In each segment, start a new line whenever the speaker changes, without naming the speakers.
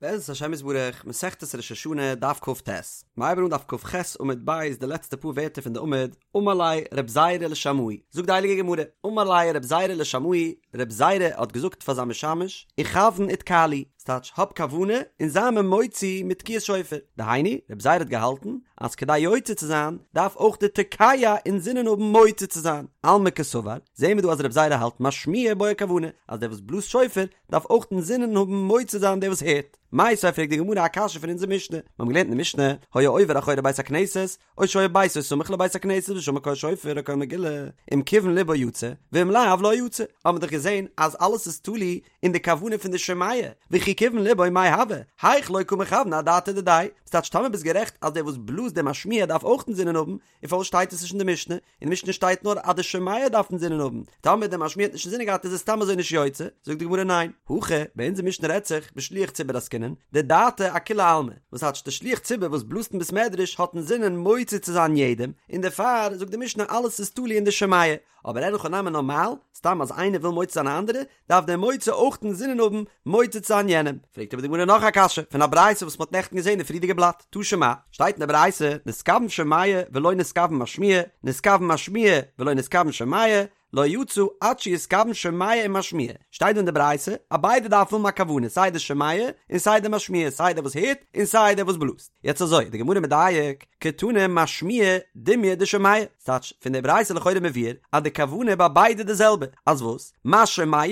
בעזרת השם יתברך, מסכת ראש השנה, דף כ"ט. מ'הייבן אן דף כ"ח עמוד ב' די לעצטע פאר ווערטער פון די עמוד, אמר ליה רב זירא לשמעיה, זאגט די הייליגע גמרא, אמר ליה רב זירא לשמעיה, רב זירא האט געזאגט פאר זיין משמש, איכוון ותקע לי, ס'טייטש האב כוונה און זיי מיר מוציא מיט תקיעת שופר, דהיינו, רב זירא האט געהאלטן אז כדי יוצא צו זיין דארף אויך די תוקע אינזינען האבן מוציא צו זיין, אלמא קסבר, זעהן מיר דא אז רב זירא האלט משמיע בעי כוונה, אז דער וואס בלאזט שופר דארף אויך אינזינען האבן מוציא זיין דער וואס הערט. מיתיבי פרעגט די גמרא א קשיא פון אונזער משנה, מיר האבן געלערנט אין די משנה, היה עובר אחורי בית הכנסת, או שהיה ביתו סמוך לבית הכנסת ושמע קול שופר או קול מגילה, אם כיוון לבו יצא, ואם לאו לא יצא, האבן מיר דאך געזען אז אלעס איז תלוי אין די כוונה פון די שומע, וכי כיוון לבו מאי הוי, היאך לא קא מכוון אדעתיה דידיה, ס'טייטש טאמער ביסט גערעכט אז דער וואס בלאזט דער משמיע דארף אויך אינזינען האבן, און פארוואס שטייט עס נישט אין די משנה? אין די משנה שטייט נאר אז די שומע דארף אינזינען האבן, טאמער דער משמיע האט נישט אינזינען געהאט איז עס סתם אזוי נישט יוצא, זאגט די גמרא ניין, הכא, ביי אונזער משנה רעדט זיך בשליח ציבור עסקינן, דדעתיה אכולי עלמא, וואס טייטש דער שליח ציבור וואס בלאזט אין בית מדרש האט אינזינען מוציא צו זיין יעדעם, און דערפאר זאגט די משנה אלעס איז תלוי אין די שומע, אבער אין הכי נמי נארמאל, סתם אז איינער וויל מוציא זיין א אנדערע, דארף דער מוציא אויך אינזינען האבן מוציא צו זיין יענעם. פרעגט אבער די גמרא נאך א קשיא פון א ברייתא וואס מ'האט נעכטן געזען אין פריערדיגע בלאט, תא שמע, שטייט אין די ברייתא, נתכוון שומע ולא נתכוון משמיע, נתכוון משמיע ולא נתכוון שומע, לא יצא עד שיתכוון שומע ומשמיע, שטייט דא אין די ברייתא אז ביידע דארפן האבן א כוונה סיי די שומע און סיי די משמיע, סיי דער וואס הערט און סיי דער וואס בלאזט. יעצט אזוי, די גמרא מדייק, קתני משמיע דומיא דשומע, ס'טייטש פון די ברייתא לכאורה מבואר אז די כוונה ביי ביידע די זעלבע, אז וואס? מה שומע,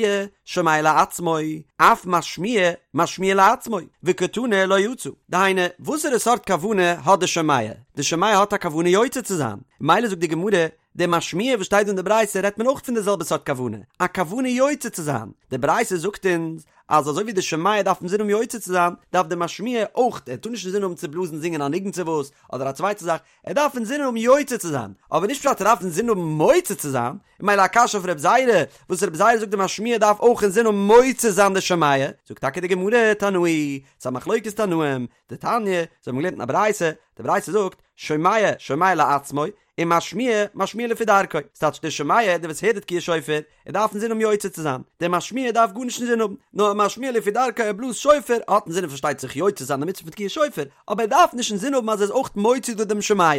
שומע לעצמו, אף משמיע, משמיע לעצמו, וקתני לא יצא. דהיינו, וואסערע סארט כוונה האט די שומע? די שומע האט א כוונה יוצא צו זיין, מילא זאגט די גמרא, די משמיע וואס שטייט דא אין די ברייתא רעדט מען אויך פון די זעלבע סארט כוונה, א כוונה יוצא צו זיין, די ברייתא זאגט אונז אז אזוי ווי די שומע דארף אינזין האבן יוצא צו זיין, דארף די משמיע אויך, ער טאר נישט אינזין האבן צו בלאזן זינגען א ניגון צו וואס, אדער א צווייטע זאך, ער דארף אינזין האבן יוצא צו זיין, אבער נישט פשט ער דארף אינזין האבן מוציא צו זיין, און מילא א קשיא אויף רב זירא, וואס רב זירא זאגט די משמיע דארף אויך אינזין האבן מוציא זיין די שומע, זאגט טאקע די גמרא, תנאי, ס'איז א מחלוקת תנאים, דתניא, זיי האבן געלערנט אין א ברייתא, די ברייתא זאגט, שומע, שומע לעצמו, און משמיע, משמיע לפי דרכו, ס'טייטש דער שומע, דער וואס הערט די תקיעת שופר, ער דארף אינזין האבן יוצא צו זיין, דער משמיע דארף גארנישט אינזין האבן, נאר משמיע לפי דרכו ער בלאזט שופר, האט אינזין פארשטייט זיך יוצא צו זיין די מצוה פון תקיעת שופר, אבער ער דארף נישט אינזין האבן אז ער איז אויך מוציא דא דעם שומע.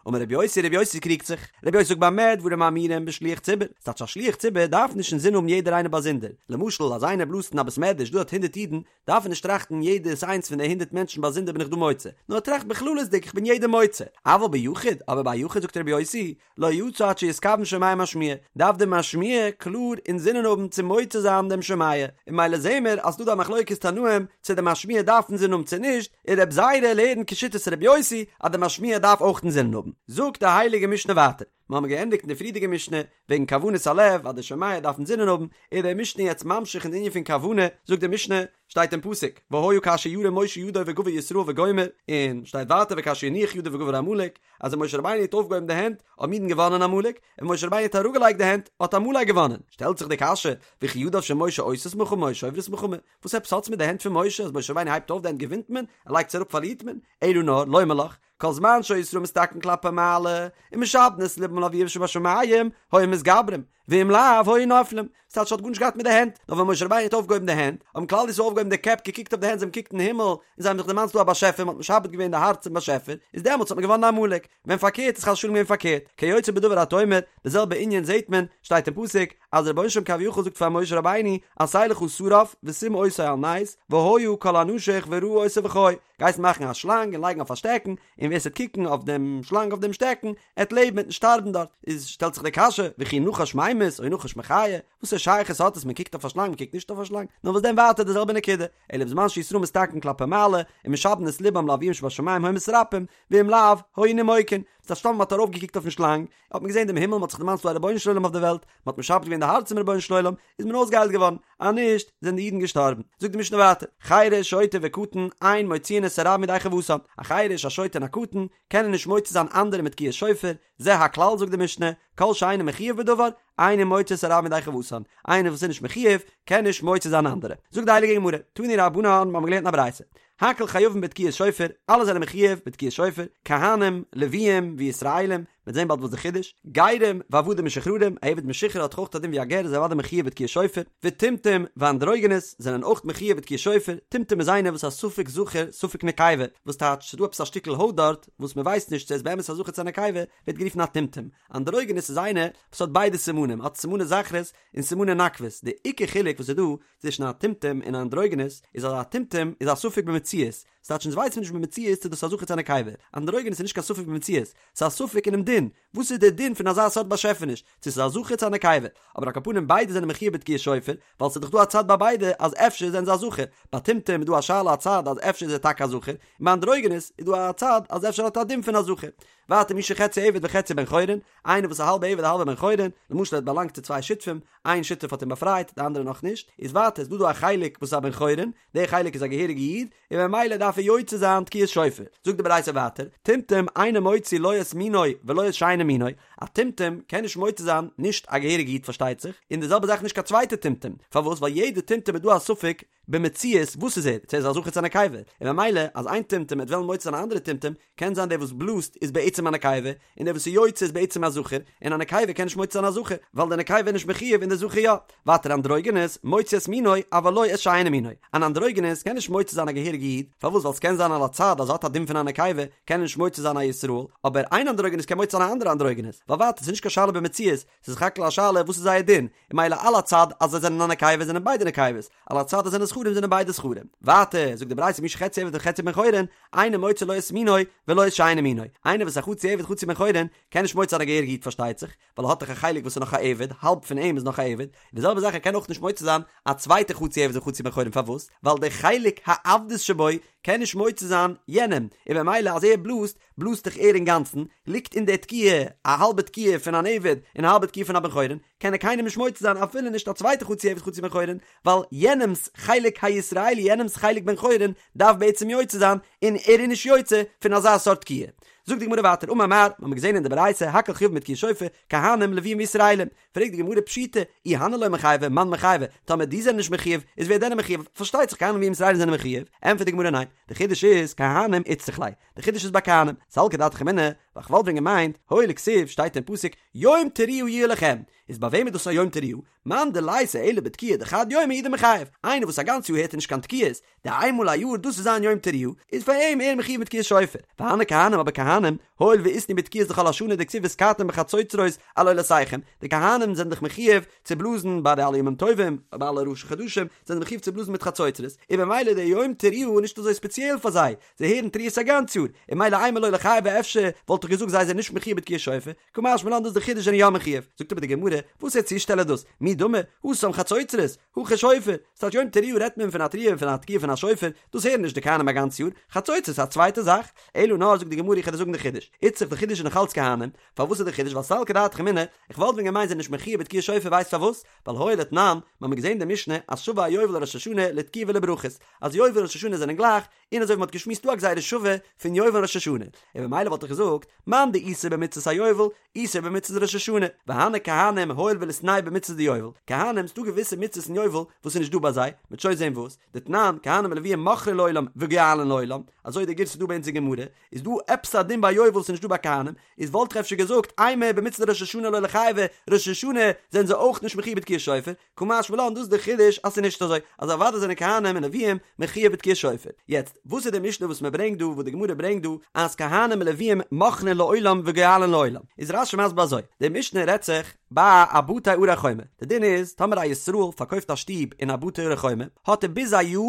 אמר רבי יוסי, רבי יוסי קריגט זיך, רבי יוסי זאגט במה דברים אמורים בשליח ציבור, ס'טייטש א שליח ציבור דארף נישט אינזין האבן יעדער איינער באזונדער, למשל אז איינער בלאזט אין א בית מדרש דא האט הונדערט אידן, דארף ער נישט טראכטן יעדעס איינס פון די הונדערט מענטשן באזונדער בין איך דא מוציא, נאר ער טראכט בכללות'דיג איך בין יעדעם מוציא. אבל ביחיד, אבער ביי א יחיד זאגט רבי יוסי, לא יצא עד שיתכוון שומע ומשמיע, דארף דער משמיע קלאר אינזינען האבן צו מוציא זיין דעם שומע, און מילא זעהן מיר אז ס'דא דא א מחלוקת תנאים צו דער משמיע דארף אינזינען האבן צו נישט, און רבי זירא לערנט כשיטת רבי יוסי אז דער משמיע דארף אויך אינזינען האבן. זאגט די הייליגע משנה ווייטער. מיר האבן געענדיגט אין די פריערדיגע משנה וועגן כוונת הלב אז די שומע דארף אינזינען האבן, איז די משנה יעצט ממשיך אין די ענין פון כוונה, זאגט די משנה, שטייט אין פסוק, והיה כאשר ירים משה ידו וגבר ישראל וגומר, און שטייט ווייטער וכאשר יניח ידו וגבר עמלק, אז ווען משה רבינו האט אויפגעהויבן די הענט האבן אידן געוואנען עמלק, און משה רבינו האט אראפגעלייגט די הענט האט עמלק געוואנען, שטעלט זיך די קשיא, וכי ידיו של משה עושות מלחמה או שוברות מלחמה, וואס עפעס האטס מיט די הענט פון משה, אז משה רבינו הייבט אויף די הענט געווינט מען, ער לייגט עס אראפ פארלירט מען, אלא נאר, לומר לך, כל זמן שהיו ישראל מסתכלין כלפי מעלה, ומשעבדין את לבם לאביהם שבשמים, היו מתגברים, ואם לאו, היו נופלים. ס'טייטש ס'האט גארנישט געהאט מיט די הענט, נאר ווען משה רבינו האט אויפגעהויבן די הענט, האבן כלל ישראל אויפגעהויבן די קעפ, געקוקט אויף די הענט, זיי האבן געקוקט אין הימל, און זיי האבן זיך דערמאנט ס'דא א באשעפער, מ'האט משעבד געווען די הארץ צום באשעפער, איז דעמאלטס האט מען געוואנען עמלק, ווען פארקערט איז חס ושלום געווען פארקערט, כיוצא בדבר אתה אומר, די זעלבע ענין זעט מען, שטייט אין פסוק, אז דער רבונו של עולם כביכול זאגט פאר משה רבינו, עשה לך שרף ושים אותו על נס, והיה כל הנשוך וראה אותו וחי, גייסט מאכן א שלאנג און לייגן אויף א שטעקן, און ווער ס'וועט קוקן אויף דעם שלאנג אויף דעם שטעקן, עט לעבן עט נישט שטארבן דארט. איז שטעלט זיך די קשיא, וכי נחש ממית או נחש מחיה, וואסער שייכות האט עס מען קוקט אויף א שלאנג מען קוקט נישט אויף א שלאנג, נאר וואס דען ווייטער די זעלבע נקודה, אלא בזמן שישראל מסתכלין כלפי מעלה, ומשעבדין את לבם לאביהם שבשמים היו מתרפאים, ואם לאו, היו נימוקין, ס'טייטש טאמער מ'האט ארויפגעקוקט אויפן שלאנג, האט מען געזען דעם הימל, מ'האט זיך דערמאנט ס'דא א רבונו של עולם אויף די וועלט, מ'האט משעבד געווען די הארץ צום רבונו של עולם, איז מען אויסגעהיילט געווארן, אז נישט, זענען די אידן געשטארבן. זאגט די משנה ווייטער, חרש, שוטה וקטן, אין מוציאין את הרבים ידי חובתן, א חרש, א שוטה און א קטן, קענען נישט מוציא זיין אנדערע מיט תקיעת שופר, זה הכלל זאגט די משנה, כל שאינו מחויב בדבר, אינו מוציא את הרבים ידי חובתן, איינער וואס איז נישט מחויב, קען נישט מוציא זיין אנדערע. זאגט די הייליגע גמרא, תנו רבנן, מיר האבן געלערנט אין א ברייתא, הכל חייבין בתקיעת שופר, אלע זענען מחויב בתקיעת שופר, כהנים, לוויים, וישראלים, מ'וועט זען באלד וואס די חידוש, גרים ועבדים משוחררים, א עבד משוחרר האט דאך אויך א דין ווי א גר איז אוודאי מחויב בתקיעת שופר, וטומטום ואנדרוגינוס זענען אויך מחויב בתקיעת שופר, טומטום איז איינער וואס איז א ספק זכר ספק נקבה, וואס טייטש ס'איז דא עפעס א שטיקל הויט דארט וואס מ'ווייסט נישט צו ער איז באמת א זכר צו א נקבה, ווערט גערופן א טומטום, אנדרוגינוס איז איינער וואס האט ביידע סימנים, האט סימני זכרות און סימני נקבות, די עיקר חילוק וואס איז דא צווישן א טומטום און א אנדרוגינוס איז אז א טומטום איז א ספק במציאות, ס'טייטש אונז ווייסן נישט במציאות צו דאס איז א זכר צו א נקבה, אנדרוגינוס איז נישט קיין ספק במציאות, ס'איז א ספק אינעם דין, וואס איז דער דין פון אזא סארט באשעפעניש, צו ס'איז א זכר צו א נקבה, אבער על כל פנים ביידע זענען מחויב בתקיעת שופר, ווייל ס'איז דאך דא א צד ביי ביידע אז אפשר זענען זיי א זכר, ביי טומטום איז דא א שאלה א צד אז אפשר איז ער טאקע א זכר, און ביי אנדרוגינוס איז דא א צד אז אפשר האט ער א דין פון א זכר. ווייטער מי שחציו עבד וחציו בן חורין, איינער וואס איז א האלבע עבד א האלבע בן חורין, למשל ער האט באלאנגט צו צוויי שותפים, איין שותף האט אים באפרייט, די אנדערע נאך נישט, איז ווייטער איז דא דא א חלק וואס איז א בן חורין, דער חלק איז א געהעריגע איד, און ממילא דארף ער יוצא זיין תקיעת שופר. זאגט די ברייתא ווייטער, טומטום אינו מוציא לא את מינו ולא את שאינו מינו, א טומטום קען נישט מוציא זיין נישט א געהעריגע איד פארשטייט זיך, און די זעלבע זאך נישט קיין צווייטע טומטום, פארוואס ווייל יעדע טומטום איז דא א ספק במציאות וואס איז ער, צו ער איז א זכר צו א נקבה, און ממילא אז איין טומטום וועט וועלן מוציא זיין א אנדערע טומטום, קען זיין דער וואס בלאזט איז בעצם א נקבה, און דער וואס איז יוצא איז בעצם א זכר, און א נקבה קען נישט מוציא זיין א זכר, ווייל דער נקבה איז נישט מחויב און דער זכר יא. ווייטער אנדרוגינוס, מוציא את מינו, אבל לא את שאינו מינו. אן אנדרוגינוס קען נישט מוציא זיין א געהעריגע איד, פארוואס ווייל ס'קען זיין על הצד אז ער האט א דין פון א נקבה, קען ער נישט מוציא זיין א ישראל, אבער איין אנדרוגינוס קען מוציא זיין א אנדערע אנדרוגינוס, ווייל ווייטער ס'איז נישט קיין שאלה במציאות, ס'איז סך הכל א שאלה וואס איז זייער דין, און ממילא על הצד אז זיי זענען א נקבה זענען ביידע נקבות, על הצד אז זענען זכרים זענען ביידע זכרים. ווייטער זאגט די ברייתא מי שחציו עבד וחציו בן חורין, אינו מוציא לא את מינו ולא את שאינו מינו. איינער וואס איז א חצי עבד חצי בן חורין, קען נישט מוציא זיין א געהעריגע איד פארשטייט זיך, ווייל ער האט דאך א חלק וואס איז נאך א עבד, האלב פון אים איז נאך א עבד, און די זעלבע זאך ער קען אויך נישט מוציא זיין א צווייטע חצי עבד וחצי בן חורין פארוואס? ווייל די חלק העבדות שבו קען נישט מוציא זיין יענעם, און במילא אז ער בלאזט, בלאזט דאך ער אינגאנצן, ליגט אין די תקיעה א האלבע תקיעה פון אן עבד און א האלבע תקיעה פון א בן חורין, קען ער קיינעם נישט מוציא זיין אפילו נישט א צווייטע חצי עבד חצי בן חורין, ווייל יענעמ'ס חלק הישראלי יענעמ'ס חלק בן חורין דארף בעצם יוצא זיין און ער איז נישט יוצא פון אזא סארט תקיעה. זאגט די גמרא ווייטער אמר מר, מ'האמיר געזען אין די ברייתא הכל חייבין בתקיעת שופר, כהנים לוויים וישראלים, פרעגט די גמרא פשיטא, אי הני לא מיחייבי, מאן מיחייבי, טאמער די זענען נישט מחויב, איז ווער דען איז מחויב? פארשטייט זיך כהנים לוויים ישראלים זענען מחויב, ענטפערט די גמרא ניין, די חידוש איז כהנים איצטריך ליה, די חידוש איז ביי כהנים, סלקא דעתך אמינא, ווייל כ'וואלט ווען געמיינט, הואיל וכתיב שטייט אין פסוק יום תרועה יהיה לכם, איז ביי וועם איז דאס א יום תרועה? מאן דליתיה אלא בתקיעה דחד יומא הוא דמיחייב, איינער וואס א גאנץ יאר הערט ער נישט קיין תקיעות, די איין מאל א יאר דאס איז זיין יום תרועה, איז פאר אים ער מחויב מיט תקיעת שופר, והני כהנים אבער כהנים, הואיל ואיתנהו בתקיעות דכל השנה דכתיב ותקעתם בחצוצרות על עולותיכם, די כהנים זענען דאך מחויב צו בלאזן ביי די אלע ימים טובים, ביי אלע ראשי חדשים, זענען זיי מחויב צו בלאזן מיט חצוצרות, און במילא די יום תרועה איז נישט אזוי ספעציעל פאר זיי, זיי הערן תרועות א גאנץ יאר, און ממילא אימא לא ליחייבו אפשר וואלט איך געזאגט זיי זענען נישט מחויב בתקיעת שופר, קא משמע לן דאס די חידוש זענען יא מחויב, זאגט אבער די גמרא, וואס א צושטעל איז דאס, מי דמי, התם חצוצרות, הכא שופר, ס'טייטש יום תרועה רעדט מען פון א תרועה און פון א תקיעה פון א שופר, דאס הערן נישט די כהנים א גאנץ יאר, חצוצרות איז א צווייטע זאך, אלא נאר זאגט די גמרא איך וועל דיר זאגן די חידוש, איצטריך די חידוש איז נאך אלץ כהנים, פארוואס איז די חידוש ווייל סלקא דעתך אמינא, איך וואלט ווען געמיינט זענען נישט מחויב בתקיעת שופר ווייסט פארוואס, ווייל הואיל ותנן, מ'האמיר געזען די משנה אז שווה היובל לראש השנה לתקיעה ולברכות, אז יובל און ראש השנה זענען גלייך, און אזוי ווי מ'האט געשמועסט דא א גזירה שווה פון יובל און ראש השנה, און במילא וואלט איך געזאגט, מאן דאיתיה במצות היובל, איתיה במצות ראש השנה, והני כהנים הואיל וליתנהו במצות דיובל, כהנים ס'דא געוויסע מצוות אין יובל וואס איז נישט דא ביי זיי, מ'וועט שוין זען וואס, דתנן, כהנים ולוויים מוכרין לעולם וגואלין לעולם, אזוי די גירסא דא ביי אונז אין גמרא, איז דא עפעס א דין ביי יובל וואס איז נישט דא ביי כהנים, איז וואלט איך אפשר געזאגט, אימא במצות דראש השנה לא ליחייבו, ראש השנה זענען זיי אויך נישט מחויב בתקיעת שופר, קא משמע לן דאס איז די חידוש אז ס'איז נישט אזוי אז אוודאי זענען כהנים און לוויים מחויב בתקיעת שופר. יעצט, וואס איז די משנה וואס מ'ברענגט דא וואס די גמרא ברענגט דא אז כהנים און לוויים מוכרין לעולם וגואלין לעולם? איז רש"י מסביר אזוי, די משנה רעדט זיך ביי א בתי ערי חומה, די דין איז טאמער א ישראל פארקויפט א שטוב אין א בתי ערי חומה האט ער ביז א יאר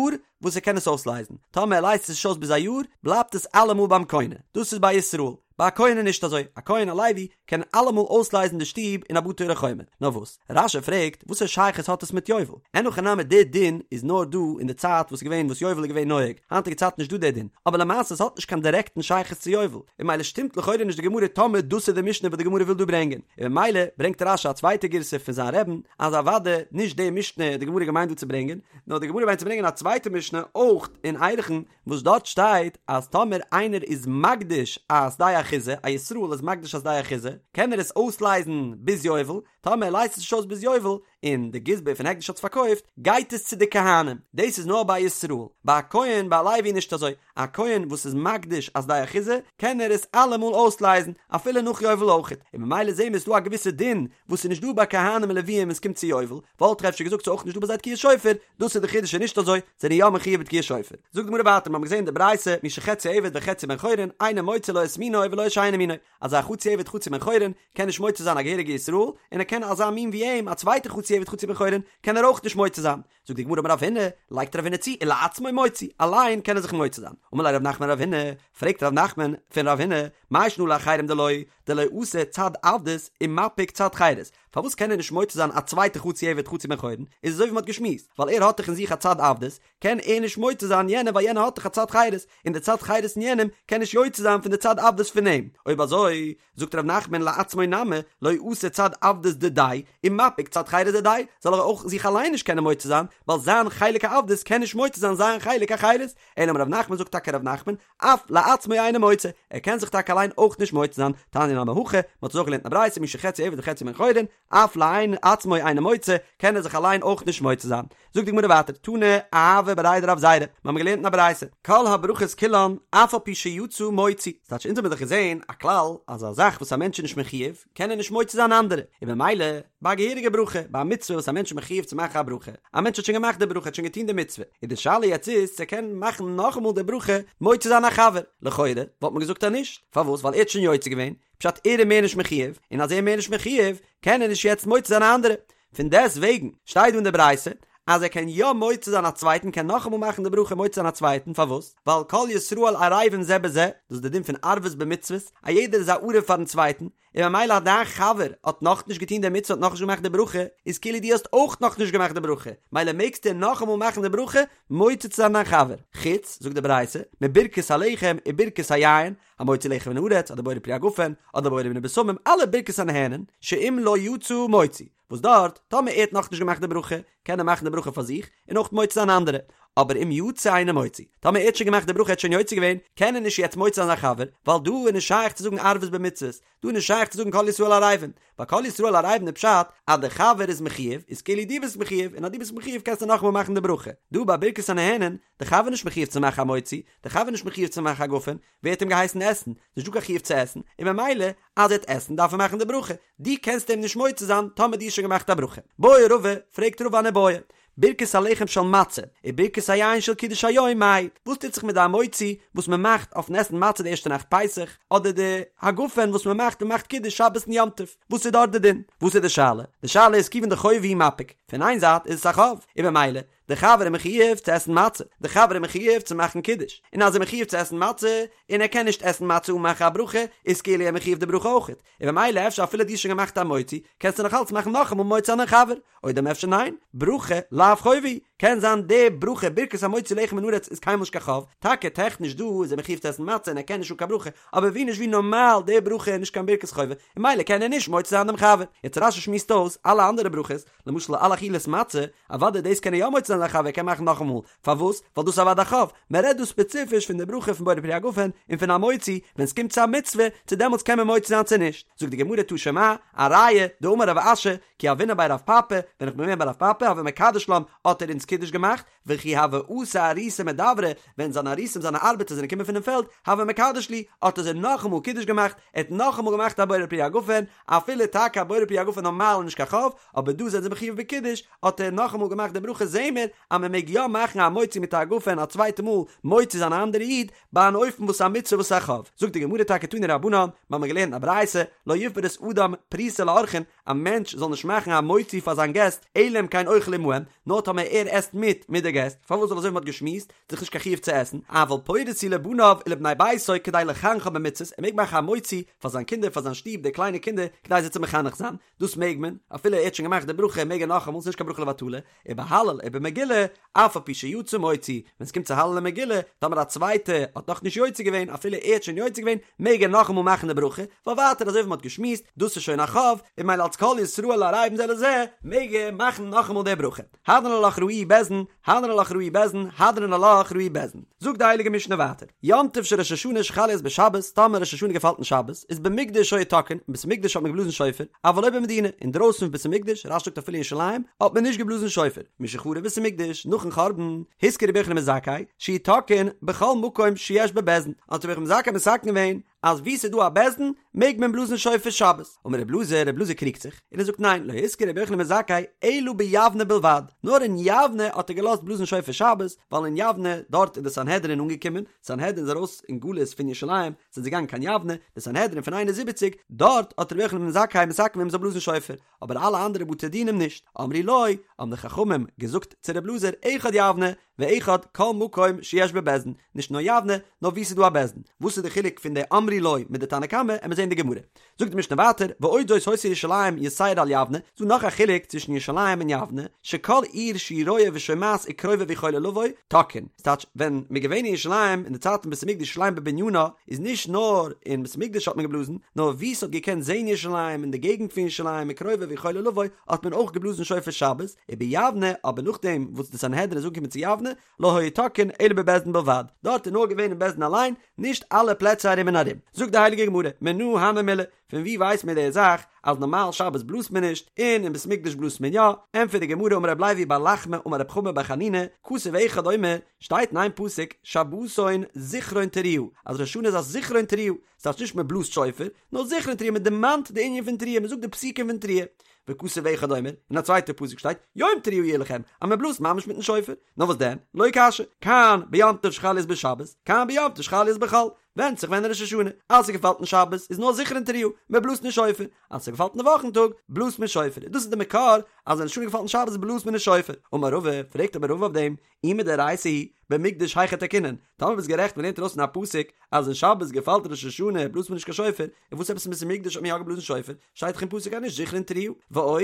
וואס ער קען עס אויסלייזן, טאמער ער לייזט עס נישט אויס ביז א יאר בלייבט עס אלעמאל ביים קונה, דאס איז ביי ישראל. ביי א כהן איז נישט אזוי, א כהן א לוי קען אלעמאל אויסלייזן די שטוב אין א בתי ערי חומה, נאר וואס? רש"י פרעגט, וואסער שייכות האט עס מיט יובל? אין הכי נמי די דין איז נאר דא אין די צייט וואס איז געווען וואס יובל איז געווען נוהג, היינטיגע צייט נישט דא די דין, אבער למעשה עס האט נישט קיין דירעקטן שייכות צו יובל, און ממילא שטימט לכאורה נישט די גמרא טאמער דאס איז די משנה וואס די גמרא וויל דא ברענגען, און ממילא ברענגט רש"י א צווייטע גירסא פון זיין רבי'ן אז אוודאי נישט די משנה האט די גמרא געמיינט דא צו ברענגען, נאר די גמרא מיינט צו ברענגען א צווייטע משנה אויך אין ערכין, וואס דארט שטייט אז טאמער איינער איז מקדיש א שדה אחוזה, א ישראל איז מקדיש א שדה אחוזה, קען ער עס אויסלייזן ביז יובל, טאמער ער לייזט עס נישט אויס ביז יובל, און די גזבר פון הקדש האט עס פארקויפט, גייט עס צו די כהנים, דאס איז נאר ביי ישראל, ביי א כהן ביי א לוי נישט אזוי, א כהן וואס איז מקדיש א שדה אחוזה קען ער עס אלעמאל אויסלייזן אפילו נאך יובל אויכעט, און ממילא זעהן מיר ס'איז דא א געוויסע דין וואס איז נישט דא ביי כהנים און לוויים ווען ס'קומט צו יובל, וואלט איך אפשר געזאגט ס'איז אויך נישט דא ביי זיי תקיעת שופר, דאס איז די חידוש איז נישט אזוי, זענען יא מחויב בתקיעת שופר. זאגט די גמרא ווייטער מיר האבן געזעהן די ברייתא מי שחציו עבד וחציו בן חורין אינו מוציא לא את מינו ולא את שאינו מינו, אז א חצי עבד חצי בן חורין קען נישט מוציא זיין א געהעריגע ישראל, און ער קען אזא מין ווי אים א צווייטע חצי עבד חצי בן חורין קען ער אויך נישט מוציא זיין, זאגט די גמרא אמר רב הונא, לייגט רב הונא צו, ולעצמו מוציא, אליין קען ער זיך מוציא זיין. אמר ליה רב נחמן לרב הונא, פרעגט רב נחמן פון רב הונא, מאי שנא לאחרים דלא, דלא אתי צד עבדות ומפיק צד חירות, פארוואס קען ער נישט מוציא זיין א צווייטע חצי עבד חצי בן חורין, איז אזוי ווי מען האט געשמועסט, ווייל ער האט דאך אין זיך א צד עבדות, קען ער נישט מוציא זיין יענעם ווייל יענער האט דאך א צד חירות, און די צד חירות אין יענעם קען נישט יוצא זיין פון די צד עבדות פון אים, אויב אזוי, זאגט ר' נחמן לעצמו נמי, לא אתי צד עבדות דידיה, ומפיק צד חירות דידיה, זאל ער אויך זיך אליין נישט קענען מוציא זיין, ווייל זיין חלק העבדות קען נישט מוציא זיין זיין חלק החירות, אלא אמר ר' נחמן זאגט טאקע ר' נחמן, אף לעצמו אינו מוציא, ער קען זיך טאקע אליין אויך נישט מוציא זיין, תניא נמי הכי, מען האט עס אויך געלערנט אין א ברייתא מי שחציו עבד וחציו בן חורין, אף לעצמו אינו מוציא, קען ער זיך אליין אויך נישט מוציא זיין. זאגט די גמרא ווייטער, תנא אהבה בריה דרב זירא, מיר האבן געלערנט אין א ברייתא, כל הברכות כולן אף על פי שיצא מוציא, ס'טייטש אונז האבן דאך געזען א כלל אז א זאך וואס א מענטש איז נישט מחויב קען ער נישט מוציא זיין אנדערע, און במילא ביי א געהעריגע ברכה, ביי א מצוה וואס א מענטש איז מחויב צו מאכן א ברכה, א מענטש האט שוין געמאכט די ברכה, האט שוין געטון די מצוה, און די שאלה יעצט איז צו ער קען מאכן נאכאמאל די ברכה מוציא זיין א חבר, לכאורה וואלט מען געזאגט אז נישט, פארוואס? ווייל ער האט שוין יוצא געווען, פשט ער איז מער נישט מחויב, און אז ער איז מער נישט מחויב קען ער נישט יעצט מוציא זיין א אנדערע, פון דעסט וועגן שטייט דא אין די ברייתא אז ער קען יא מוציא זיין א צווייטן קען נאכאמאל מאכן די ברכה מוציא זיין א צווייטן פארוואס ווייל כל ישראל ערבים זה בזה דאס איז די דין פון ערבות במצוות א יעדער איז א ערב פארן צווייטן און ממילא אז דיין חבר האט נאכנישט געטון די מצוה האט נאכנישט געמאכט די ברכה איז כאילו דו האסט אויך נאכנישט געמאכט די ברכה מילא מעגסטו נאכאמאל מאכן די ברכה מוציא צו זיין דיין חבר חוץ זאגט די ברייתא מברכת הלחם וברכת היין המוציא לחם מן הארץ, אדער בורא פרי הגפן, אדער בורא מיני בשמים, אלע ברכות הנהנין, שאם לא יצא מוציא, וואס דארט, טאמער ער האט נאכנישט געמאכט די ברכה, קען ער מאכן די ברכה פאר זיך, און אויך מוציא זיין אנדערע, אבער אם יצא אינו מוציא, טאמער ער האט שוין געמאכט די ברכה ער האט שוין יוצא געווען, קען ער נישט יעצט מוציא זיין זיין חבר, ווייל דא איז נישט שייך צו זאגן ערבות במצוות, דא איז נישט שייך צו זאגן כל ישראל ערבים, ווייל כל ישראל ערבים איז פשט אז דער חבר איז מחויב, איז כאילו דו ביסט מחויב, און אז דו ביסט מחויב קענסטו נאכאמאל מאכן די ברכה. דא ביי ברכת הנהנין, דער חבר איז נישט מחויב צו מאכן המוציא, דער חבר איז נישט מחויב צו מאכן א גפן, ווער האט אים געהייסן עסן? נישט דא קיין חיוב צו עסן, און ממילא אז ער וועט עסן דארף ער מאכן די ברכה, דו קענסט אים נישט מוציא זיין טאמער דו האסט שוין געמאכט א ברכה. בעי רבא, פרעגט רבא אן איבעיא, ברכת הלחם של מצה, וברכת היין של קידוש היום מאי, וואס טוט זיך מיט די המוציא וואס מען מאכט אויפן עסן מצה די ערשטע נאכט פסח, אדער די הגפן וואס מען מאכט ווען מען מאכט קידוש שבת און יום טוב, וואס איז דארט די דין? וואס איז די שאלה? די שאלה איז כיוון דחובה הוא מפיק, פון איין זייט איז עס א חוב, און ממילא די חבר איז מחויב צו עסן מצה, די חבר איז מחויב צו מאכן קידוש, און אז ער איז מחויב צו עסן מצה, און ער קען נישט עסן מצה אן מאכן א ברכה, איז כאילו ער מחויב די ברכה אויכעט, און ממילא אפשר אפילו דו האסט שוין געמאכט המוציא, קענסטו נאך אלץ מאכן נאכאמאל מוציא דיין חבר, או דלמא אפשר ניין, ברכה לאו חובה היא, קען זיין די ברכה ברכת המוציא לחם מן הארץ איז קיינמאל נישט קיין חוב, טאקע טעכניש דא איז ער מחויב צו עסן מצה און ער קען נישט אן קיין ברכה, אבער ווי נישט ווי נארמאל די ברכה איז נישט קיין ברכת חובה, און ממילא קען ער נישט מוציא זיין דעם חבר. יעצט רש"י שמועסט אויס אלע אנדערע ברכות, למשל על אכילת מצה, אוודאי דאס קען ער יא מוציא זיין זיין חבר, ער קען מאכן נאכאמאל, פארוואס? ווייל דאס איז אוודאי א חוב, מען רעדט דא ספעציפיש פון די ברכה פון בורא פרי הגפן און פון המוציא, ווען ס'קומט צו א מצוה, צו דעמאלטס קען מען מוציא זיין צו נישט, זאגט די גמרא תא שמע, א ראיה, דאמר רב אשי, כי הוינא בי רב פפא, ווען איך בין געווען ביי רב פפא הוה מקדש לן, האט ער אונז קידוש געמאכט, וכי הוו אתו אריסי מדברא, ווען זיינע אריסים זיינע ארבעטער זענען געקומען פונעם פעלד, הוה מקדש להו, האט ער זיי נאכאמאל קידוש געמאכט, ער האט נאכאמאל געמאכט א בורא פרי הגפן, אפילו טאקע א בורא פרי הגפן נארמאל איז נישט קיין חוב, אבער דא זענען זיי מחויב בקידוש, האט ער נאכאמאל געמאכט די ברכה זעהן מיר אז מען מעג יא מאכן המוציא מיט א הגפן א צווייטע מאל מוציא זיין א אנדערע איד, ביי אן אופן וואס איז א מצוה וואס איז א חוב. זאגט די גמרא טאקע תנו רבנן, מיר האבן געלערנט א ברייתא, לא יפרוס אדם פרוסה לאורחין, א מענטש זאל נישט מאכן המוציא פאר זיין געסט, אלא אם כן אוכל עמהם, נאר טאמער ער עסט מיט מיט די געסט, פארוואס ווייל אזוי ווי מען האט געשמועסט, איז דאך נישט קיין חיוב צו עסן, אבל פורס הוא לבניו ולבני ביתו כדי לחנכם במצוות, ער מעג מאכן המוציא פאר זיין קינדער פאר זיין שטוב די קליינע קינדער כדי זיי צו מחנך זיין, דאס מעג מען, אפילו ער האט שוין געמאכט די ברכה מעג ער נאכאמאל, ס'איז נישט קיין ברכה לבטלה, ובהלל ובמגילה. מגילה, אף על פי שיצא מוציא, ווען ס'קומט צו הלל און מגילה, טאמער א צווייטע האט נאך נישט יוצא געווען, אפילו ער האט שוין יוצא געווען, מעג ער נאכאמאל מאכן די ברכה, ווייל ווייטער אזוי ווי מ'האט געשמועסט, דאס איז שוין א חוב, און ממילא אלס כל ישראל ערבים זה לזה, מעג ער מאכן נאכאמאל די ברכה. הדרן עלך ראוהו בית דין, הדרן עלך ראוהו בית דין, הדרן עלך ראוהו בית דין. זאגט די הייליגע משנה ווייטער, יום טוב של ראש השנה שחל להיות בשבת, טאמער ראש השנה געפאלט אין שבת, איז במקדש היו תוקעין, אין בית המקדש האט מען געבלאזן שופר, אבל לא במדינה, אינדרויסן פון בית המקדש, רש"י זאגט אפילו אין ירושלים, האט מען נישט געבלאזן שופר. משחרב בית המקדש, נאכן חורבן, התקין רבי יוחנן בן זכאי, שיהו תוקעין בכל מקום שיש בו בית דין, האט רבי יוחנן בן זכאי מתקן געווען, אז וואו ס'איז דא א בית דין מעג מען בלאזן שופר שבת. אמר רבי אלעזר, רבי אלעזר קריגט זיך, און ער זאגט ניין, לא התקין רבי יוחנן בן זכאי אלא ביבנה בלבד, נאר אין יבנה האט ער געלאזט בלאזן שופר שבת, ווייל אין יבנה, דארט איז די סנהדרין אנגעקומען, סנהדרין איז ארויס אין גלות פון ירושלים, זענען זיי געגאנגען קיין יבנה, די סנהדרין פון 71, דארט האט רבי יוחנן בן זכאי מתקן געווען מ'זאל בלאזן שופר, אבער אלע אנדערע בתי דינים נישט. אמרו לו, האבן די חכמים געזאגט צו רבי אלעזר, אחד יבנה, ואחד כל מקום שיש בו בית דין, נישט נאר יבנה, נאר וואו ס'איז דא א בית דין. וואס איז די חילוק פון די אמרו לו מיט די תנא קמא, עמיר זעהן די גמרא. זאגט די משנה ווייטער, ועוד זאת היתה ירושלים יתירה על יבנה, ס'דא נאך א חילוק צווישן ירושלים און יבנה, שכל עיר שהיא רואה ושומעת וקרובה ויכולה לבוא, תוקעין. ס'טייטש, ווען מ'איז געווען אין ירושלים אין די צייטן פון בית המקדש ירושלים בבנינה, איז נישט נאר אין בית המקדש האט מען געבלאזן, נאר וואו ס'האט געקענט זעהן ירושלים אין די געגנט פון ירושלים וקרובה ויכולה לבוא, האט מען אויך געבלאזן שופר שבת, וביבנה, אבער נאכדעם וואס די סנהדרין איז אנגעקומען צו יבנה, לא היו תוקעין אלא בבית דין בלבד, דארט איז נאר געווען אין בית דין אליין, נישט אלע פלעצער ארום און ארום. זאגט די הייליגע גמרא, מנא הני מילי, פון וואו ווייסט מען די זאך אז נארמאל שבת בלאזט מען נישט, און אין בית מקדש בלאזט מען יא? ענטפערט די גמרא אמר רב לוי בר לחמא אמר רב חמא בר חנינא, כתוב אחד אומר, שטייט אין איין פסוק, שבתון זכרון תרועה, אז ראש השנה איז א זכרון תרועה, ס'טייטש נישט מען בלאזט שופר, נאר זכרון תרועה, מען דערמאנט די ענין פון תרועה, מען זאגט די פסוקים פון תרועה. וכתוב אחד אומר, אין א צווייטע פסוק שטייט, יום תרועה יהיה לכם, אז מען בלאזט ממש מיטן שופר. נאר וואס דען? לא קשיא, כאן ביום טוב שחל להיות בשבת, כאן ביום טוב שחל להיות בחול. ווענדט זיך ווען ראש השנה. אז ס'געפאלט אין שבת איז נאר זכרון תרועה, מען בלאזט נישט שופר. אז ס'געפאלט אין די וואכן טאג, בלאזט מען שופר. דאס איז די מקור אז ווען ראש השנה געפאלט אין שבת בלאזט מען נישט שופר. אמר רבא, פרעגט אבער רבא אויף דעם, אי מדאורייתא היא, במקדש היכי תקעינן, טאמער ביסט גערעכט מ'לערנט ארויס פון א פסוק אז אין שבת געפאלט ראש השנה בלאזט מען נישט קיין שופר, און וואס עפעס אין בית המקדש האט מען יא געבלאזן שופר, שטייט דאך אין פסוק אז נישט זכרון תרועה. ועוד,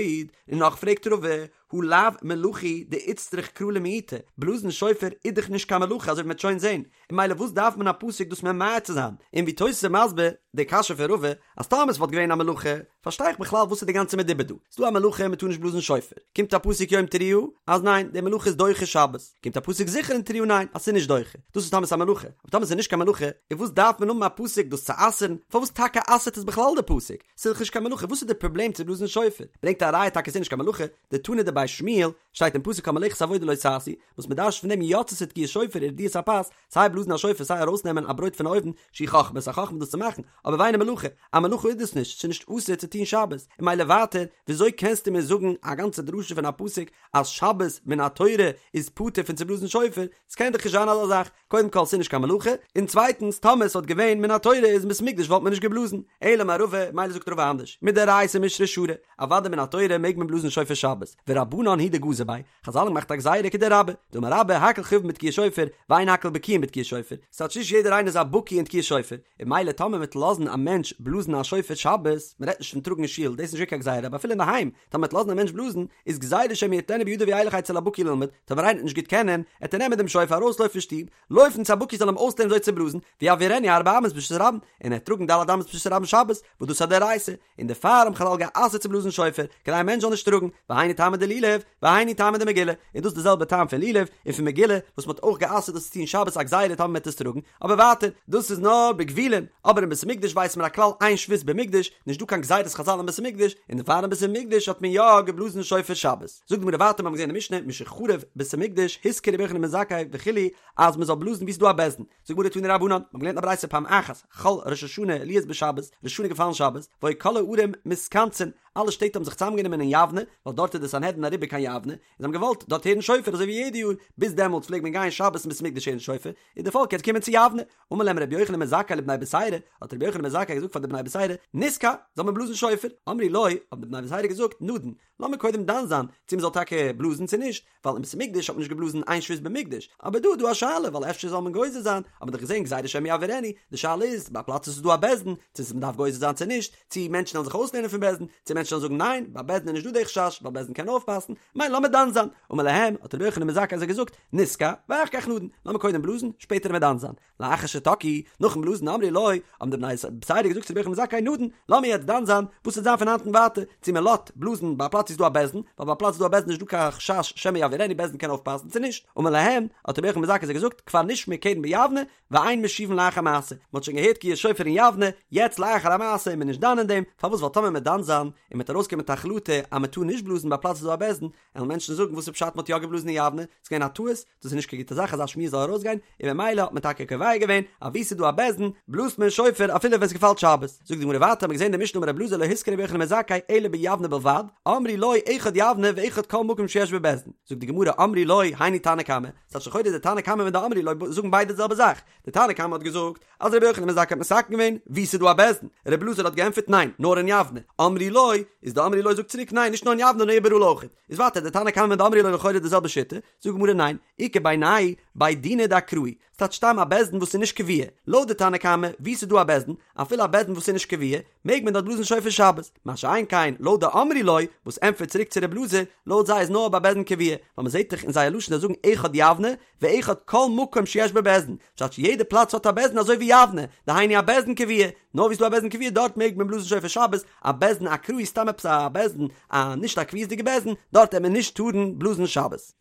און נאך פרעגט רבא, הא לאו מלאכה היא דאיצטריך קרא למעוטה, בלאזן שופר איז דאך נישט קיין מלאכה אזוי ווי מ'וועט שוין זען, און ממילא וואס דארף מען א פסוק דאס ממעט צו זיין? און ווי תוס' איז מסביר די קשיא פון רבא, אז טאמער עס וואלט געווען א מלאכה, פארשטיי איך בכלל וואס איז די גאנצע מדובר דא? ס'דא א מלאכה מ'טאר נישט בלאזן שופר, קומט א פסוק יום תרועה אז ניין די מלאכה איז דוחה שבת, קומט א פסוק זכרון תרועה ניין אז ס'איז נישט דוחה, דאס איז טאמער ס'איז א מלאכה, אבער טאמער ס'איז נישט קיין מלאכה, איז וואס דארף מען האבן א פסוק דאס צו אסר'ן, פארוואס טאקע אסר'ט עס בכלל די פסוק? ס'איז דאך נישט קיין מלאכה וואס איז די פראבלעם צו בלאזן שופר? ברענגט א ראיה טאקע ס'איז נישט קיין מלאכה, דתנא דבי שמואל, שטייט אין פסוק כל מלאכת עבודה לא תעשו, וואס מ'דרש'ט פון דעם יצתה תקיעת שופר ורדיית הפת, סיי בלאזן א שופר סיי ארויסנעמען א ברויט פון א אויוון, שהיא חכמה, ס'איז א חכמה דאס צו מאכן, אבער ואינה מלאכה, א מלאכה איז דאס נישט, ס'איז נישט אסור צו טון שבת, און ממילא ווייטער, וויאזוי קענסטו מיר זאגן א גאנצע דרשה פון א פסוק אז שבת מן התורה איז פטור פון צו בלאזן שופר, ס'קען דאך נישט זיין אזא זאך, קודם כל ס'איז נישט קיין מלאכה, און צווייטנס טאמער ס'וואלט געווען מן התורה איז אין בית המקדש וואלט מען נישט געבלאזן, אלא אמר רבא, ממילא זאגט רבא אנדערש, מדאורייתא מישרא שרי, אוודאי מן התורה מעג מען בלאזן שופר שבת, ורבנן הוא דגזור ביה, חזל האבן געמאכט א גזירה כדרבה, דאמר רבה הכל חייבין בתקיעת שופר, ואין הכל בקיאין בתקיעת שופר, ס'טייטש נישט יעדער איינער איז א בקי אין תקיעת שופר, און ממילא טאמער מ'וועט לאזן א מענטש בלאזן א שופר שבת, מ'רעדט נישט פון טראגן אין שול, דאס איז נישט קיין גזירה, אבער אפילו אינדערהיים, טאמער מ'וועט לאזן א מענטש בלאזן, איז גזירה שמא יטלנו בידו וילך אצל הבקי ללמוד, טאמער איינער וועט נישט גוט קענען, עט ער נעמען דעם שופר ארויסלויפן פון שטוב, לויפן צו א בקי זאל אים אויסלערנען וויאזוי צו בלאזן, ויעבירנו ארבע אמות ברשות הרבים, און ער וועט טראגן ד' אמות ברשות הרבים שבת, וואס דאס איז א דאורייתא, און דערפאר האבן חזל גע'אסר'ט צו בלאזן שופר, כדי א מענטש זאל נישט טראגן, והיינו טעמא דלולב, והיינו טעמא דמגילה, און דאס איז די זעלבע טעם פון לולב, און פון מגילה, וואס מ'האט אויך גע'אסר'ט דאס צו טון שבת א גזירה טאמער מ'וועט עס טראגן, אבער ווייטער, דאס איז נאר בגבולין, אבער אין בית המקדש ווייסט מען א כלל אין שבות במקדש, נישט דא קיין גזירת חזל אין בית המקדש, און דערפאר אין בית המקדש האט מען יא געבלאזן שופר שבת. זאגט די גמרא ווייטער מיר האבן געזען אין משנה, משחרב בית המקדש, התקין רבי יוחנן בן זכאי וכו', אז מ'זאל בלאזן וואו ס'איז דא א בית דין, זאגט די גמרא תנו רבנן, מיר האבן געלערנט א ברייתא פעם אחת, חל ראש השנה להיות בשבת, ראש השנה געפאלן שבת, והיו כל הערים מתכנסין, אלע שטעט האבן זיך צוזאמגענומען אין יבנה, ווייל דארט איז די סנהדרין אריבער קיין יבנה, און זיי האבן געוואלט דארט הערן שופר אזוי ווי יעדע יאר, ביז דעמאלטס פלעגט מען גיין שבת אין בית המקדש הערן שופר, איז די פאלק יעצט געקומען צו יבנה, אמר להם רבי יוחנן בן זכאי לבני בתירא, האט רבי יוחנן בן זכאי געזאגט פאר די בני בתירא, נתקע, זאל מען בלאזן שופר, אמרו לו, האבן די בני בתירא געזאגט, נדון, לאמיר קודם דן זיין צו מען זאל טאקע בלאזן צו נישט, ווייל אין בית המקדש האט מען נישט געבלאזן אין שבות במקדש, אבער דא איז דא א שאלה ווייל אפשר זאל מען גוזר זיין, האט מען דאך געזען גזירה שמא יעבירנו, די שאלה איז ביי א פלאץ וואס איז דא א בית דין, צו מען דארף גוזר זיין צו נישט, צו מענטשן וועלן זיך אויסלערנען פון בית דין, צו מענטשן. מענטשן וועלן זאגן ניין, ביי בית דין איז נישט דא די חשש, ווייל בית דין קען אויפפאסן, ממילא לאמיר דן זיין. אמר להם, האט רבי יוחנן בן זכאי זיי געזאגט, נתקע, ואחר כך נדון, לאמיר קודם בלאזן, שפעטער וועלן מיר דן זיין. לאחר שתקעו, נאכן בלאזן אמרו לו, האבן די בני בתירא געזאגט צו רבי יוחנן בן זכאי נדון, לאמיר יעצט דן זיין, וואס וועט זיין פון היינט און ווייטער, צו מען לאזט בלאזן ביי א פלאץ וואו ס'איז דא א בית דין, ווייל ביי א פלאץ וואו ס'איז דא א בית דין איז נישט דא קיין חשש שמא יעבירנו בית דין קען אויפפאסן צו נישט, אמר להם, האט רבי יוחנן בן זכאי זיי געזאגט, כבר נשמע קרן ביבנה, ואין משיבין לאחר מעשה, מען האט שוין געהערט תקיעת שופר אין יבנה, יעצט לאחר המעשה איז מען נישט דן אין דעם, פארוואס ווייל טאמער מ'וועט דן זיין, און מ'וועט ארויסקומען מיט א החלטה אז מען טאר נישט בלאזן ביי א פלאץ וואו ס'איז דא א בית דין, וועלן מענטשן זאגן וואס איז פשט מען האט יא געבלאזן אין יבנה, ס'איז געווען א טעות, דאס איז נישט קיין גוטע זאך אזא שמועה זאל ארויסגיין, און ממילא האט מען טאקע קובע געווען אז וואו ס'איז דא א בית דין בלאזט מען שופר אפילו ווען ס'געפאלט שבת. זאגט די גמרא ווייטער האט מען געזען די משנה אמר רבי אלעזר לא התקין רבי יוחנן בן זכאי אלא ביבנה בלבד, אמרו לו אחד יבנה ואחד כל מקום שיש בו בית דין, זאגט די גמרא אמרו לו היינו תנא קמא, ס'טייטש לכאורה די תנא קמא מיט די אמרו לו זאגן ביידע די זעלבע זאך, די תנא קמא האט געזאגט אז רבי יוחנן בן זכאי האט מתקן געווען וואו ס'איז דא א בית דין, רבי אלעזר האט געענטפערט ניין נאר אין יבנה, אמרו לו איז די אמרו לו זאגט צוריק ניין נישט נאר אין יבנה נאר איבעראל אויכעט, איז ווייטער די תנא קמא מיט די אמרו לו לכאורה די זעלבע שיטה, זאגט די גמרא ניין, איכא בינייהו בי דינא דאקראי, ס'טייטש סתם א בית דין וואס איז נישט קבוע, לויט די תנא קמא וואו ס'איז דא א בית דין, אפילו א בית דין וואס איז נישט קבוע, מעג מען דארט בלאזן שופר שבת, מה שאין כן לויט די אמרו לו וואס ענטפערט צוריק צו רב אלעזר, לויט זיי איז נאר ביי בית דין קבוע, ווייל מען זעט דאך אין זייער לשון זיי זאגן אחד יבנה ואחד כל מקום שיש בו בית דין, פשט יעדע פלאץ האט א בית דין אזוי ווי יבנה, דהיינו א בית דין קבוע, נאר וואו ס'איז דא א בית דין קבוע דארט מעג מען בלאזן שופר שבת, א בית דין אקראי סתם עפעס א בית דין, א נישט א קביעות'דיגע בית דין, דארט העט מען נישט טארן בלאזן שבת.